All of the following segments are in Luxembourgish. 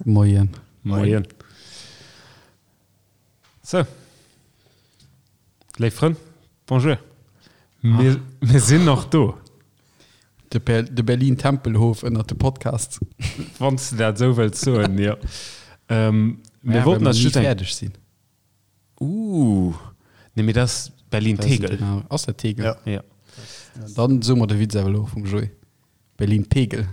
Moien. Moien. Sou. Léif Frënn, bonjour. Mir, mir sinn nach do. De, Ber de Berlin-Tempelhof ënnert de Podcasts. Wann s de dat esou wëlls soen, jo. Ähm, mir Ja, wollten well eis mer ni just eng. fäerdeg sinn. Uh, nee, mee dat ass Berlin-Tegel. Ass dat Tegel? Ja. Ja. Dann soe mer de Witz awer elo vum Joé. Berlin-Tegel.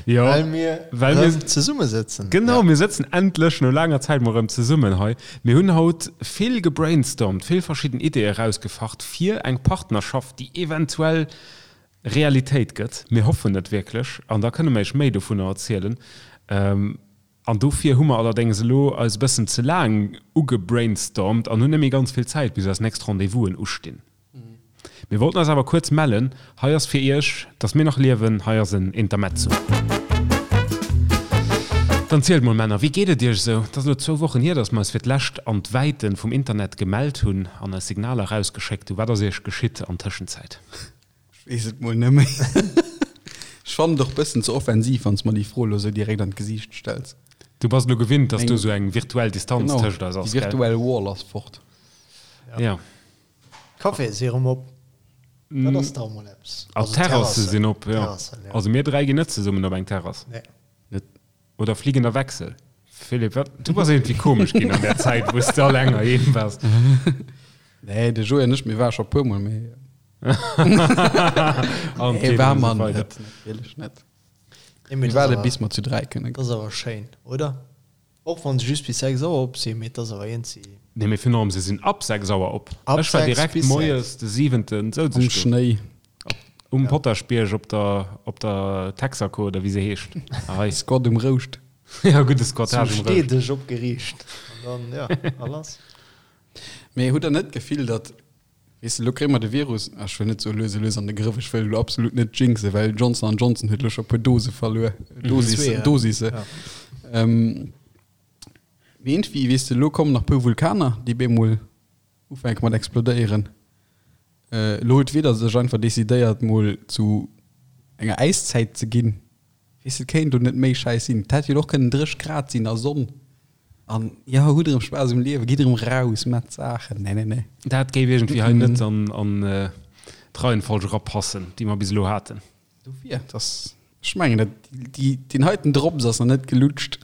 Jo, Well mir well mir erëm zesummesëtzen. Genau, Ja. mir sëtzen endlech no laanger Zäit mol erëm zesummen hei. Mir hunn haut vill gebrainstormt, vill verschidden Ideeë erausgefacht fir eng Partnerschaft, déi eventuell Realitéit gëtt. Mir hoffen et wierklech an da kënne mer iech méi dovunner erzielen. An dofir hu mer allerdéngs elo eis e bëssen ze laang ugebrainstormt an hunn net méi ganz vill Zäit, bis eis nächst Rendez-vousen ustinn. Mir wollten eis awer kuerz mellen. Hei ass fir iech, dass mir nach liewen, hei ass en Intermezzo. Dann zielt mol Männer, wéi geet et iech esou? Et ass elo zwou Wochen hier, dass mer eis fir d'lescht an d'Wäiten vum Internet gemellt hunn an eis Signaler erausgeschéckt hunn. Wat ass iech geschitt an Tëschenzäit? Ech weess et mol net méi. Ech fannen et och bëssen ze offensiv, wann s mer déi Fro elo sou direkt an d'Gesiicht stells. Du bass elo gewinnt, dass Eng do sou eng virtuell Distanz Genau, tëscht eis déi ass, gell? virtuell Wall ass fort. Ja. D'Caféë si erëm op. Dat ass dach emol eppes. A Also d'Terrasse d'Terrassen. sinn op, jo. Terrassen, ja. Also mir 3 ginn net zesummen op eng Terrass. Nee. Net. Oder fliegender Wechsel. Philippe, wat? Du bass iergendwéi komesch ginn an där Zäit, wou s de alleng heiheem waars. Nee, de Joé an ech, mir ware scho puer Mol, mee. An Nee, d'Keet war an esou mer weider. net, natierlech net. Nee, mee Mir dat ass waarde awer, bis mer zu 3 kënne dat ass awer schéin, oder? Och wann se just bis 6 Auer op sinn, mee et ass awer iergendwéi. Nee, mee virun allem, se sinn ab 6 Auer op. Ab Ech war 6 direkt bis 6. moies de siwenten souz Um ech do. Schnéi. Um Potaschbierg op der, op der Texaco oder wéi se heescht. Hei. Squat um Rouscht. Ja, gudde Squattage Zu um Rouscht. Steedeg opgeriicht. An dann, ja, a lass. Mee hutt der net d'Gefill, datt, weess de, elo kréie mer de Virus, ech wëll net soe lues a lues an de Grëff, ech wëll elo absolut net jinxen, well Johnson an Johnson huet elo scho e puer Dose verluer, Dosis, Zwee, ja. Dosisse. Ja. Ähm, mee iergendwéi, weess de, elo kommen nach e puer Vulkaner, déi bemol ufänke mat explodéieren. Elo huet d'Wieder sech einfach decidéiert mol zu enger Äiszäit ze ginn. Weess de, et kéint do net méi schäiss sinn. Et hätt jo och kënnen 30 Grad sinn a Sonn an jo, hutt erëm Spaass um Liewen, gitt erëm raus, maacht Saachen. Nee, nee, nee. Dat géif iergendwéi hei net an d'Reihenfolg erapassen, déi mer bis elo haten. Dofir, dass, ech mengen, dat, déi, deen heiten Drops ass nach net gelutscht.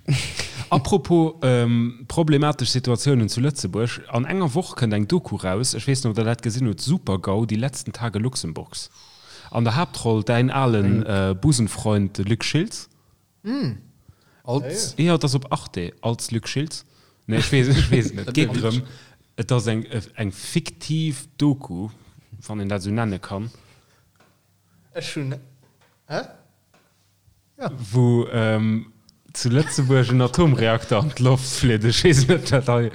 Apropos problematesch Situatiounen zu Lëtzebuerg, An enger Woch kënnt eng Doku raus, ech weess net, ob der dat gesinn hutt, Super-GAU, die letzten Tage Luxemburgs. An der Haaptroll däin alen Busenfreund, de Luc Schiltz. Als? Jo, et ass op Arte, als Luc Schiltz. Nee, ech weess, ech weess et net. Et geet drëm, et ass eng, eng fiktiv Doku, wann een dat esou nenne kann. Ech hunn, hä? Ja. Wou zu Lëtzebuerg en Atomreakter an d'Loft flitt. Ech weess net, wat hei.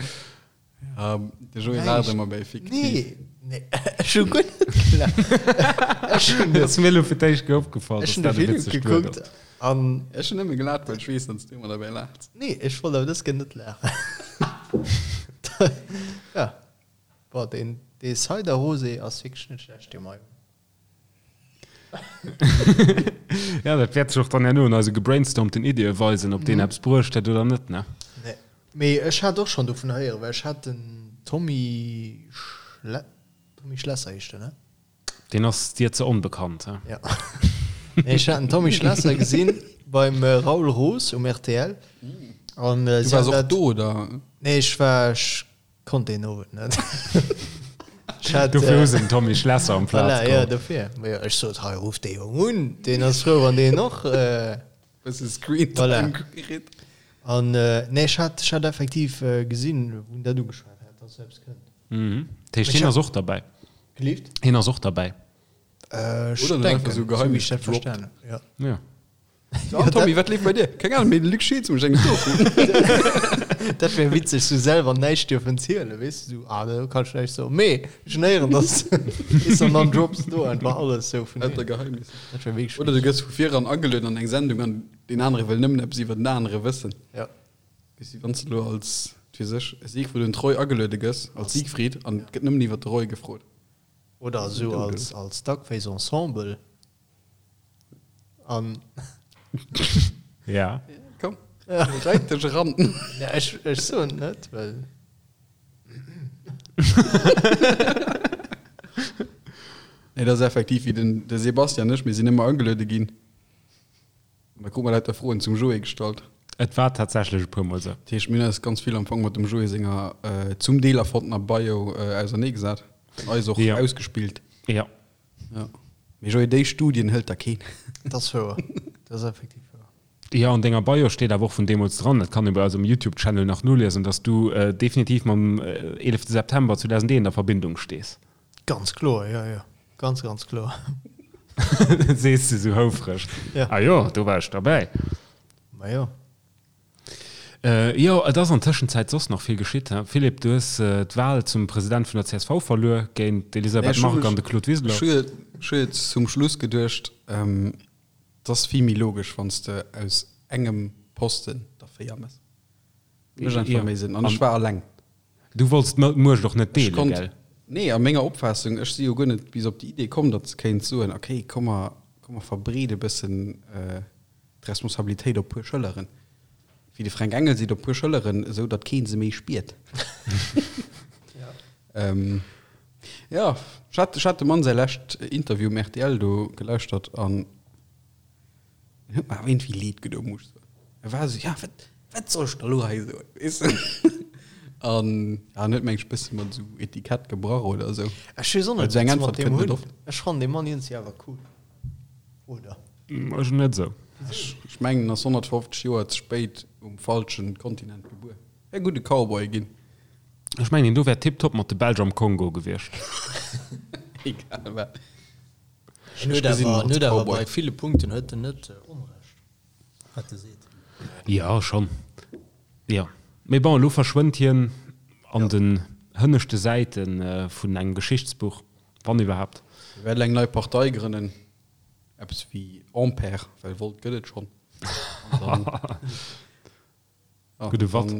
Ja, de Joé laacht ëmmer bei fiktiv. Nee, nee, ech hu guer net gelaacht. Ech hunn Dat ass mir elo fir d'éischt Kéier opgefall, ech dass hunn de dat e Film witzegt Wuert gekuckt ass. an. Ech hunn nëmme gelaacht, well ech weess, datt s du ëmmer derbäi laachs. Nee, ech wollt awer dës Kéier net laachen. Ja, boah, deen, dee Cider Rosé ass wierklech net schlecht, dee mer hei hunn. Ja, dat wäert sech och dann herno an eise gebrainstormten Iddie weisen, ob deen eppes bruecht huet oder net, ne? Nee. Mee ech hat och schonn dovun héieren, well ech hat den Tommy Schle Tommy Schlesser heescht en, ne? Deen ass dir ze onbekannt, he? Ja. Nee, ech hat den Tommy Schlesser gesinn beim Raoul Roos um rtl. An Du si waars hat och dat. do, oder? Nee, ech war, ech Konnt deen Owend net. Ech hat, Dofir hu äh, se den Tommy Schlesser am Plaz Voilà, ja, geholl. dofir. Ma jo, ech sot, hei, ruff dee Jong un, deen ass frou, wann deen och, äh, Bësse Screentime Voilà. kritt. An, äh, nee, ech hat, ech hat effektiv äh, gesinn, wou en dat ugeschwat hat, dass esou eppes kënnt. Mhm. Dat heescht, Ech hien hat- ass och derbäi. Gelift? Hien ass och derbäi. Äh, ech Oder en huet einfach denken, sou sou wéi Geheimnis ech dat gedroppt. verstanen hunn, ja. Ja. So, ah, Tommy, wat leeft bei dir? Keng Ahnung, mee de Luc Schiltz mécht eng Doku. Dat wär witzeg, sou selwer näischt dierfen zielen, weess de, sou, ah, do kann ech näischt soen, mee ech hunn héieren, dass, weess de, an dann drops de do einfach alles sou vun Lauter him. Geheimnisser. Dat wär wierklech Oder du witzeg. gëss vu viran agelueden an eng Sendung an deen anere wëll nëmmen eppes iwwer den anere wëssen. Ja. Weess de, wann s de elo als, wat weess ech, Siegfried und Roy ageluede gëss, als Siegfried, an et gëtt nëmmen iwwer de Roy gefrot. Oder esou als, als Duckface Ensemble. An. Ja. Komm, reit dech eran. Ja, ech, ech soen net, well. Nee, dat ass effektiv wéi den, de Sebastian an ech, mir sinn ëmmer ageluede ginn. An da krute mer lauter Froen zum Joé gestallt. Et war tatsächlech e puer Mol esou. Dat heescht, mir hunn eis ganz vill am Fong mat dem Joé senger zum Deel erfonntener Bio auserneegesat an eis och ausgespillt. Jo. Jo. Mee Joé, déi Studien hëlt der keen. Dat ass wouer. Dat ass effektiv wouer. Jo, an denger Bio steet awer och vun deemools dran, dat kann ee bei eis um Youtube-Channel nach noliesen, dass du definitiv mam 11 September 2001 a Verbindung stees. Ganz kloer, jo, jo. Ganz, ganz kloer. Dat sees de sou houfreg. Ja. Ah jo, do war ech derbäi. Ma jo. Jo, et ass an Tëschenzäit soss nach vill geschitt, he? Philippe, du hues d'Wal zum President vun der csv verluer géint d'Elisabeth Margue an de Claude Wiseler. Ech hu jo zum Schluss geduecht, et ass vill méi logesch, wann s de aus engem Posten der 4 méchs. Mécht einfach méi Sënn. An ech war alleng. Du wollts d'Muecht och net Ech deelen, konnt, gell? nee, a menger Opfaassung, ech si jo guer net bis op déi Idee komm, datt se kéint soen, okay, komm mer, komm mer verbreede bëssen d'Responsabilitéit op puer Schëlleren, wéi de Fränk Engel seet, op puer Schëlleren, esou datt kee se méi spiert. Jo, ech hat, ech hat dem Mann säi lescht Interview um rtl do gelauschtert an En huet mer awer iergendwéi leed gedoen, muss ech soen. E war esou, ja, wat, wat soll ech da lo hei soen, weess de? An ja, en huet meng ech bësse mat esou Etikett gebrach oder esou. Ech weess och Well net, esou eng wat se mat Äntwert deem kënnt net hunn. oft. Ech fannen dee Mann iergendwéi awer cool. Oder? Ech net esou. Ech, ech mengen, en ass 150 Joer ze spéit um falschen Kontinent gebuer. Wär gudde Cowboy ginn. Ech mengen, deen do wär tiptop mat de Belsch am Kongo gewiescht. Egal wat. En huet awer, en huet awer bei ville Punkten huet en net Onrecht, wat e seet. Jo, schonn. Jo. Mee bon, elo verschwënnt hien an den hënneschte Säite vun engem Geschichtsbuch, wann iwwerhaapt. Hie wäert eng nei Partei grënnen, eppes wéi Ampere, well Volt gëtt et schonn. An dann. Gudde Watt.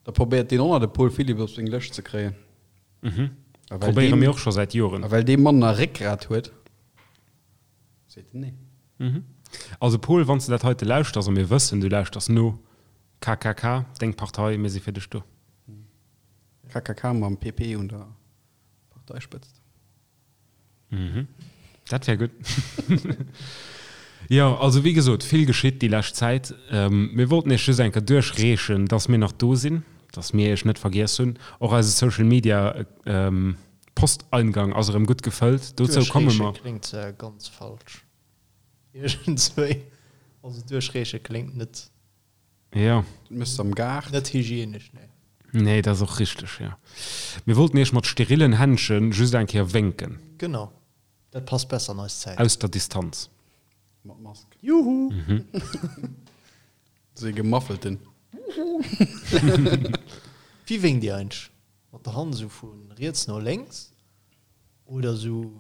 Da probéiert deen och nach de Paul Philipp op seng Lëscht ze kréien. Mhm. Probéiere mir och scho säit Joren. A well dee Mann nach Réckgrat huet, seet en nee. Mhm. Also Paul, wann s de dat heite lauschters, a mir wëssen, du lauschters no, KKK, deng Partei, mir si fir dech do. KKK mam PP un der Parteispëtzt. Mhm. Dat wär gutt. Jo, also wéi gesot, vill geschitt déi lescht Zäit. Mir wollten Iech just eng Kéier duerchreechen, dass mir nach do sinn, dass mir Iech net vergiess hunn. Och eise Social Media Posteingang ass erëm gutt gefëllt. Dozou komme Duerchreeche mer. kléngt ganz falsch iergendswéi. Also duerchreeche kléngt net. Jo. Dat méchs de am Gaart. Net hygienesch, nee. Nee, dat ass och richteg, jo. Mir wollten Iech mat sterillen Händche just eng Kéier wénken. Genau, dat passt besser an eis Zäit. Aus der Distanz. Mat Mask. Juhu! Sou ee gemaffelten. Wuhu! Wéi wénkt Dir eigentlech? Mat der Hand esou vu riets no lénks oder esou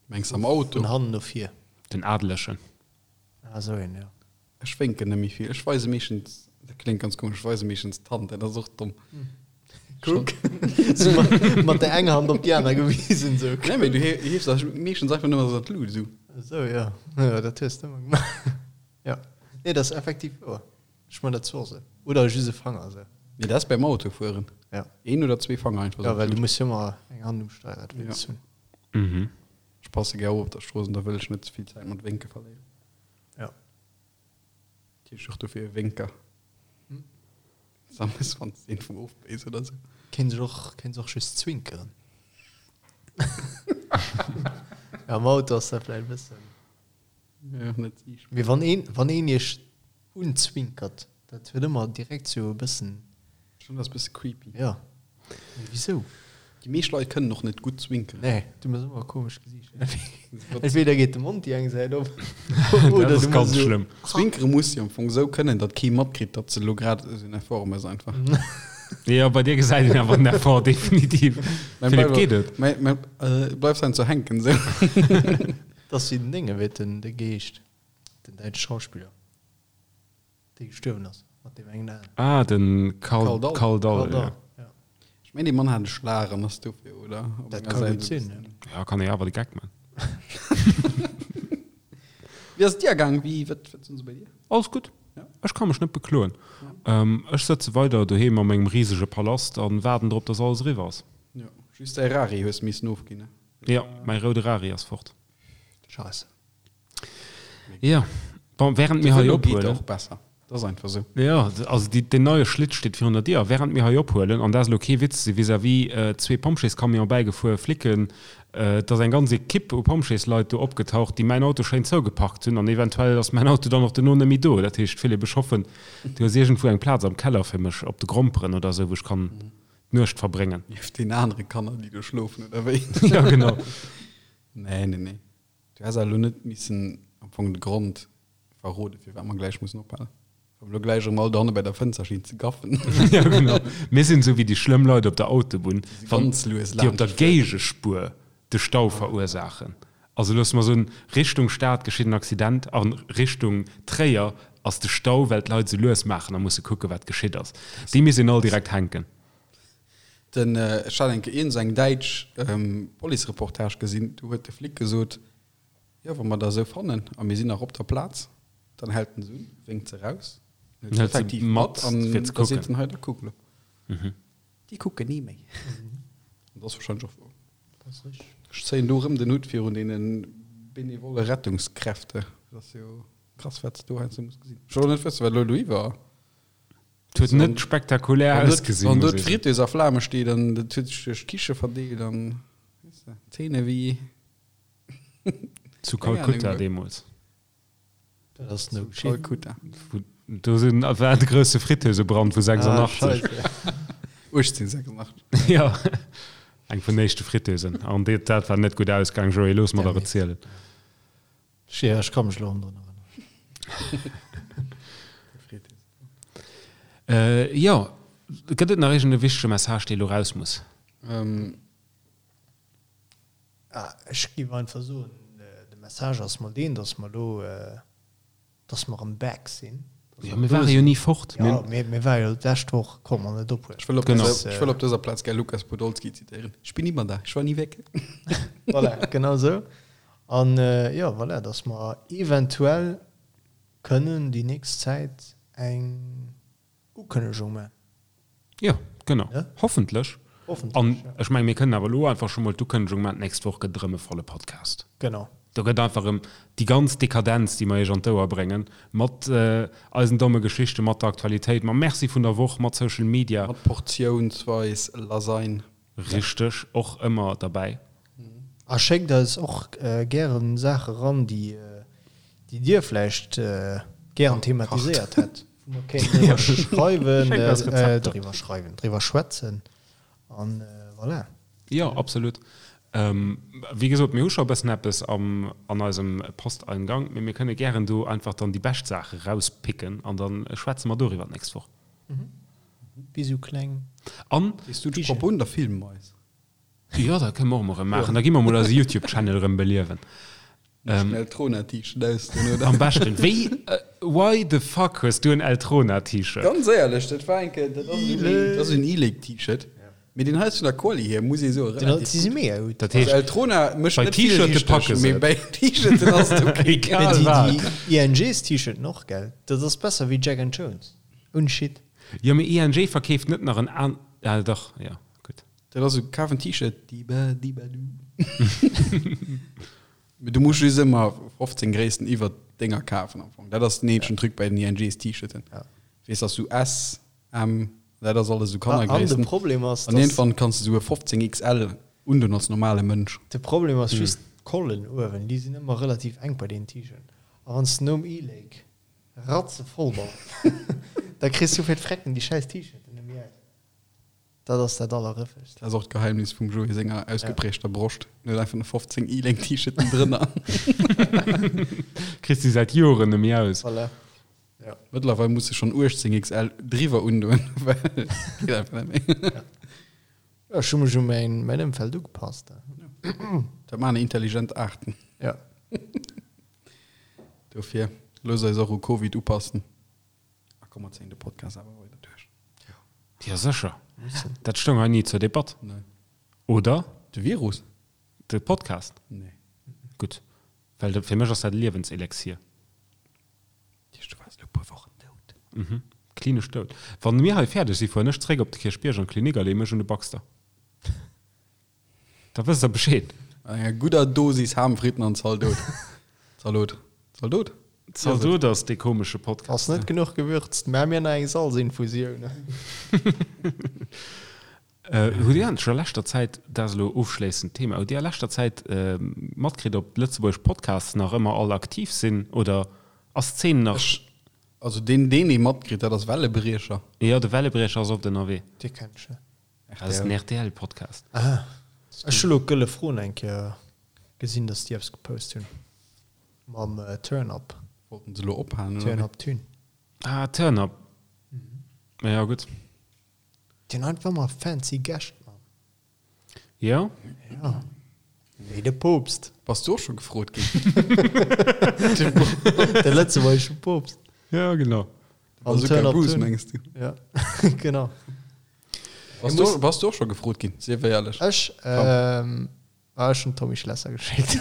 Mengs am Auto? vun hannen no vir? Den Adelegen. Ah, esou een, jo. Ech wénken net méi vill. Ech weise meeschtens, dat kléngt ganz komesch, ech weise meeschtens d'Hand, dat ass och domm. Kuck, sou mat, mat der enger Hand op déi aner gewisen, sou. Nee, mee du hiefs da meeschtens einfach nëmmen esou an d'Lut, esou. Esou, jo. Jo, dat hues de ëmmer gemaach. Jo. Nee, dat ass effektiv wouer. Ech man dat zwar och esou. Oder just e Fanger, esou. Nee, dat ass beim Autofueren. Ja. Een oder zwee Fanger einfach Jo, esou. well du muss jo ëmmer eng Hand um Steierrad wéinst hunn. Mhm. Ech passe gär op op der Strooss an da wëll ech net ze vill Zäit mat Wénke verléieren. Ja. Heescht och dofir e Wénker. Sammes wann s de een vum ofbéis oder sou. Kéint sech och, kéint och just zwinkeren. Ja, am Auto ass dat vläicht e bëssen. Ja, net siichtbar. Mee wann een, wann een iech unzwinkert, dat huet ëmmer direkt sou e bëssen. Schon ass bësse creepy. Ja. Mee wisou? Déi meescht Leit kënnen och net gutt zwinkeren. Nee, du mëss ëmmer e komescht Gesiicht. Entweder geet de Mond déi eng Säit op, Dat oder ass du ganz mëss esou. schlëmm. Zwinkere muss si am Fong esou kënnen, datt kee matkritt, datt se elo grad esou en Effort mëss einfach. Jo, bei dir gesäit een awer den Effort definitiv. Mäin Philippe, bleif, geet et? mäin, mäin, äh, bleif dann ze hänken esou. Dat ass wéi den Dénge, wéi den, de Geescht, den däitsche Schauspiller. Dee gestuerwen ass, mat deem engen Aen. Ah, den Karl, Karl Dall. Karl Dall, Karl Dall, ja. ja. Ech mengen, dee Mann hat e Schlag an ass dofir, oder? Op Dat enger ka Säit gutt esou sinn, bëssen. ja. Ja, kann ee awer de Geck man. Wéi ass et dir gaang? Wéi, wat, wat sinn se bei dir? Alles gutt. Ja. Ech ka mech net bekloen. Ech sëtze weider doheem a mengem risege Palast an waarden drop, dass alles eriwwer ass. Jo, just däi Rari hues missen ofginn, ne? Jo, mäi roude Rari ass fort. Scheisse. Jo, bon, während mir De hei Vëlo geet ophuelen. och besser, dat ass einfach esou. Jo, also déi, deen neie Schlitt steet virun der Dier. A während mir hei ophuelen, an dat ass elo kee Witz, si vis-à-vis zwee Pompjeescamione bäigefuer, Flicken, et ass eng ganz Ekipp u Pompjeesleit do opgetaucht, déi mäin Auto schéin zougeparkt hunn. An eventuell ass mäin Auto dann och duerno net méi do. Dat heescht, Philippe, ech hoffen, du hues iergendwou eng Plaz am Keller fir mech, op de Gromperen oder esou, wou ech kann d'Nuecht verbréngen. Nieft den anere Kanner, déi do schlofen, oder wéi? Jo, genau. Nee, nee, nee. Du häss awer elo net missen am Fong de Grond verroden, firwat mer gläich mussen ophalen. Wa mer elo gläich erëm all dohanne bei der Fënster stinn ze gaffen. Jo, genau. Mir sinn esou wéi déi schlëmm Leit op der Autobunn, Déi wann ganz lues déi op der laanscht fueren. Géigespuer de Stau verursaachen. Also loosse mer soen, Richtung Stad geschitt en Accident a Richtung Tréier ass de Stau, well d'Leit esou lues maachen a musse kucken, wat geschitt ass. Déi misst een all direkt hänken. Den, ech hat eng Kéier iergend eng däitsch Policereportage gesinn, do huet de Flic gesot, jo wa mer der esou fannen a mir sinn nach op der Plaz, dann hält en se un, wénkt se raus, an huet se effektiv mat an da seet en, hei da kuck elo. Déi kucken ni méi. An dat ass warscheinlech och wouer. Ech zéien do erëm den Hutt virun deene benevolle Rettungskräfte. Dat ass jo krass, wat s de do heiansdo muss gesinn. Ech wëll och net wëssen, wat elo do iwwer. Et huet net spektakulär ausgesinn. Wann do d'Fritteuse a Flame steet an dat huet sech duerch d'Kiche verdeelt an weess de, Zeene wéi. Zu Kalkutta deemools. Dat ass no Zu Kalkutta. Do sinn, war de grousse Fritteusebrand vu 86. 1886. Jo, eng vun den éischte Fritteusen. An dat war net gutt ausgaang, Joé, looss mer der erzielen. Jo, ech ka mech elo erëm drun erënneren. Jo, gëtt et nach iergend e wichtege Message, dee elo raus muss? Ech géif einfach soen, de Message ass mol deen, datt mer elo, datt mer erëm back sinn. Jo, mir ware jo ni fort. Jo, mir ware jo d'lescht Woch, konnt mer net ophuelen. Ech wëll op dëser, ech wëll op dëser Plaz gär Lukas Podolski zitéieren, Ich bin immer da, ich war nie weg. Voilà, genau esou. An jo, voilà, datt mer eventuell kënnen déi nächst Zäit eng Ukënnegung man. Jo, genau. Hoffentlech. Hoffentlech, An ja. ech mengen, mir kënnen awer elo einfach scho mol d'Ukënnegung man, d'nächst Woch gëtt et erëm e volle Podcast. Genau. Do gëtt einfach erëm déi ganz Dekadenz, déi mer iech an d'Ouer bréngen, mat eisen domme Geschichten, mat der Aktualitéit, mam Merci vun der Woch, mat Social Media. Mat portiounsweis Lasagne. Richteg, och ëmmer derbäi. A schéckt eis och gären Saache ran, déi Dir vläicht gären thematiséiert hätt, wou mer kéinten driwwer schreiwen, driwwer schreiwen, driwwer schwätzen an voilà. Jo, absolut. Wéi gesot, mir hu scho e bëssen eppes am an eisem Posteingang, mee mir kënne gären do einfach dann déi bescht Saache rauspicken an da schwätze mer doriwwer d'nächst Woch. Wéi sou kleng. An. Weess du d'Propos un der Filmmeis? Jo, dat kënne mer och mol erëm maachen. Da gi mer mol eise YouTube-Channel erëm beliewen. Den Eltrona-T-Shirt ausdinn, oder? Am beschten. Wéi, why the fuck hues du en Eltrona-T-Shirt? Ganz éierlech, dat war eng Kéier, dat ass esou een, dat ass en E-Lake-T-Shirt. Mee deen hei ass vun der Quali hier, muss ee soen, relativ Si si mega gutt. Dat heescht, Also Eltrona mécht bei net vill T-Shirte richteg, packe se mee et. bei T-Shirten ass et ok. Egal Mee déi, wat. déi INGs-T-Shirten och, gell? Dat ass besser wéi Jack and Jones. Ouni Shit. Jo, mee ING verkeeft net nach en an, ah dach, jo, gutt. Dat ass esou, kaf en T-Shirt, diba diba du. Mee du muss just ëmmer 15 Gréissten iwwer denger kafen am Fong. Dat ass den eenzegen Truc bei den INGs T-Shirten. Ja. Weess, dass du S, M, dat ass alles esou An de Kannergréissten. Problem ass, An dass iergendwann kanns du esou e 15 XL undun als normale Mënsch. De Problem ass just d'Collen uewen, déi sinn ëmmer relativ enk bei deenen T-Shirten. A wann s de nom E-Lake ratzevoll bass, da kriss du fir d'Frecken déi schäiss T-Shirten net méi aus. Dat ass dat Allerrëffegst. Dat ass och d'Geheimnis vum Joé senger ausgeprägter Broscht. En huet einfach nach 15 E-Link T-Shirten drënner. Kriss déi säit Joren net méi aus. Voilà. Ja. Mëttlerweil muss e schonn 18 XL driwwer undoen, well geet einfach net méi. Ja, ech hu mech u mäin, mäin Ëmfeld ugepasst. Dat maachen intelligent Aarten. Ja. Dofir, loosst eis och u Covid upassen. A komm, mer zéien de Podcast awer weider duerch. Jo, sécher. Dat stoung hei ni zur Debatt. Nee. Oder? De Virus? De Podcast? Nee. Gutt, well dat, fir mech ass dat e Liewenselixier. Du waars elo e puer Wochen dout. Mhm, klinesch dout. Wann mir hei fäerdeg si fueren ech zréck op de Kierchbierg an d'Klinik a leeë mech un de Baxter. Da wësst der Bescheed. Mat enger gudder Dosis Ham, Fritten an Zaldot. Zalot. Zaldot? Zaldot ass dee komesche Podcast. Ass net genuch gewürzt. Maa mir nach eng Salzinfusioun. Hutt Dir eigentlech a leschter Zäit, dat ass elo ofschléissend Thema, hutt Dir a leschter Zäit matkritt, ob d'lëtzebuergesch Podcasts nach ëmmer all aktiv sinn oder ass d'Zeen nach. Ech, also deen, deen ee matkritt, dat ass Wellebriecher. Jo, de Wellebriecher ass oft ënnerwee. Dee kenn ech net. Dat ass den RTL-Podcast. Ah, ech hu lo d'Gëlle Fron eng Kéier gesinn, dass déi eppes gepost hunn mam Turn Up. Wollten se lo ophalen, oder Turn wéi? Up Tune. Ah, Turn Up. Ja, gutt. Déi hunn einfach ëmmer fancy Gäscht, Mann. Jo. Ja. Wéi de Poopst. Bass du och scho gefrot ginn? De lëtzebuergesche Poopst. Ja, genau. Am Bazooka Turn Up Bruce, Tune. mengs du? Ja, genau. Bass du, bass du och scho gefrot ginn? Sief éierlech. Ech, ähm, ah, ech hunn Tommy Schlesser geschéckt.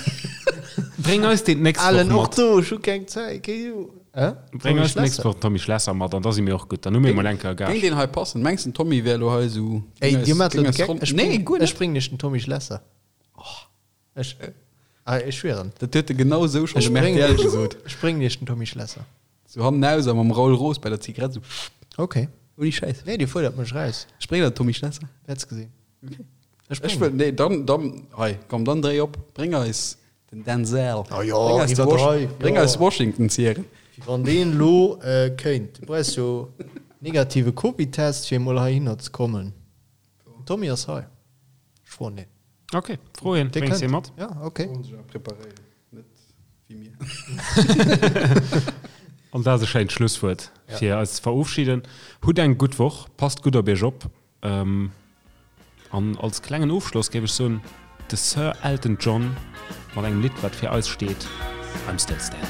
Bréng eis deen d'nächst Woch Alen, och mat. do, ech hu keng Zäit, keng Ju. Hä? Bréng Tommy eis d'nächst Schlesser. Woch den Tommy Schlesser mat an da si mir och gutt. Dann hu mir emol eng Kéier Géing Gage. deen hei passen? Mengs den Tommy wär elo hei esou. Ey, géing dir eis, maacht géing elo de eis Geck. Ronn. Ech Nee, bréng, guer ech net. bréngen iech den Tommy Schlesser. Ech, ah, ech schwieren. Dat huet e genau esou schonn Ech dem bréngen RTL iech, gesot. ech bréngen iech den Tommy Schlesser. Sou hannenaus a mam Raoul Roos bei der Zigarett sou. Okay. Ouni Schäiss. Nee, dir fuerdert mech raus. Ech bréngen der den Tommy Schlesser. Wäerts gesinn. Okay. Ech Ech bréngen. wëll, nee, dann, dann, hei, komm, dann dréi op, bréng eis den Denzel. Ah jo, Bréng eis de Wash, iwwerdreiw, bréng jo. eis Washington Zieren. Wéi wann deen lo kéint. Du brauchs jo negative Covid-Test fir emol heihinner ze kommen. Den Tommy ass hei. Ech froen deen. Ok, fro hien, Dee bréngs hie kënnt. mat. Ja, ok. Sollen sech awer preparéieren, net wéi mir. An dat ass e schéint Schlusswuert fir eis ze verofschieden. Hutt eng gutt Woch, passt gutt op iech op. An als klengen Ofschloss géif ech soen, de Sir Elton John mat engem Lidd wat fir eis steet, I'm Still Standing.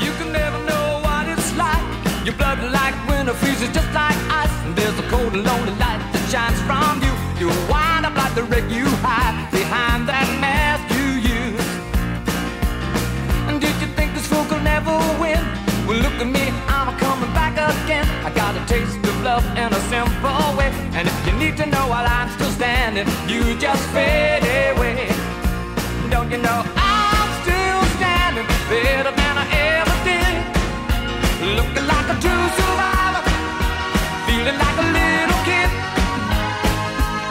You can never know what it's like. Your blood like winter freezes just like ice. And there's a cold and lonely light that shines from you. You wind up like the wreck you hide behind that mask you use. And did you think this fool could never win? Well, look at me, I'm coming back again. I got a taste of love in a simple way. And if you need to know while I'm still standing, you just fade away. Don't you know I'm still standing better than I ever did? Looking like a true survivor, feeling like a little kid.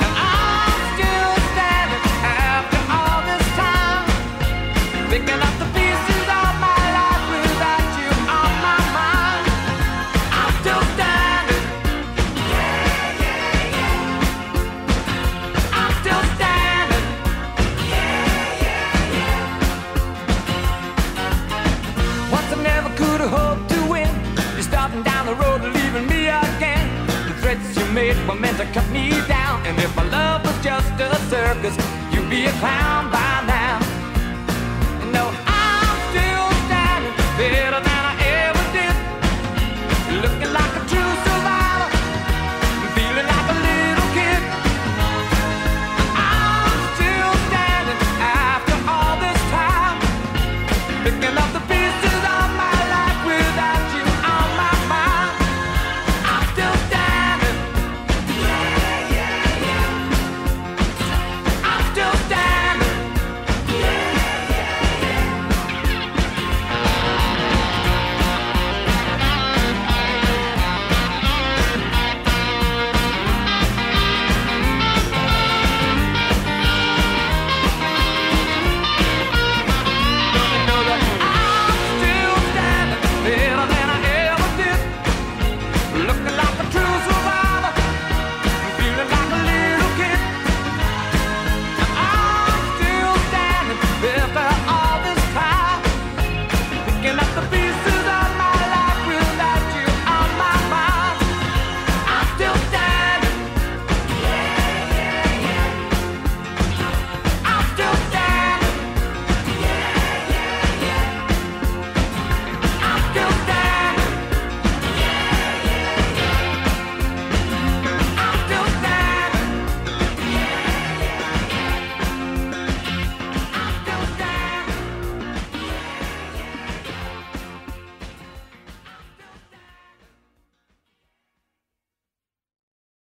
And I'm still standing after all this time, picking up the pieces of my life without you on my mind. I'm still standing. Yeah, yeah, yeah. I'm still standing. Yeah, yeah, yeah. Once I never could have hoped to win. You're starting down the road, leaving me again. The threats you made were meant to cut me down. And if my love was just a circus, you'd be a clown by.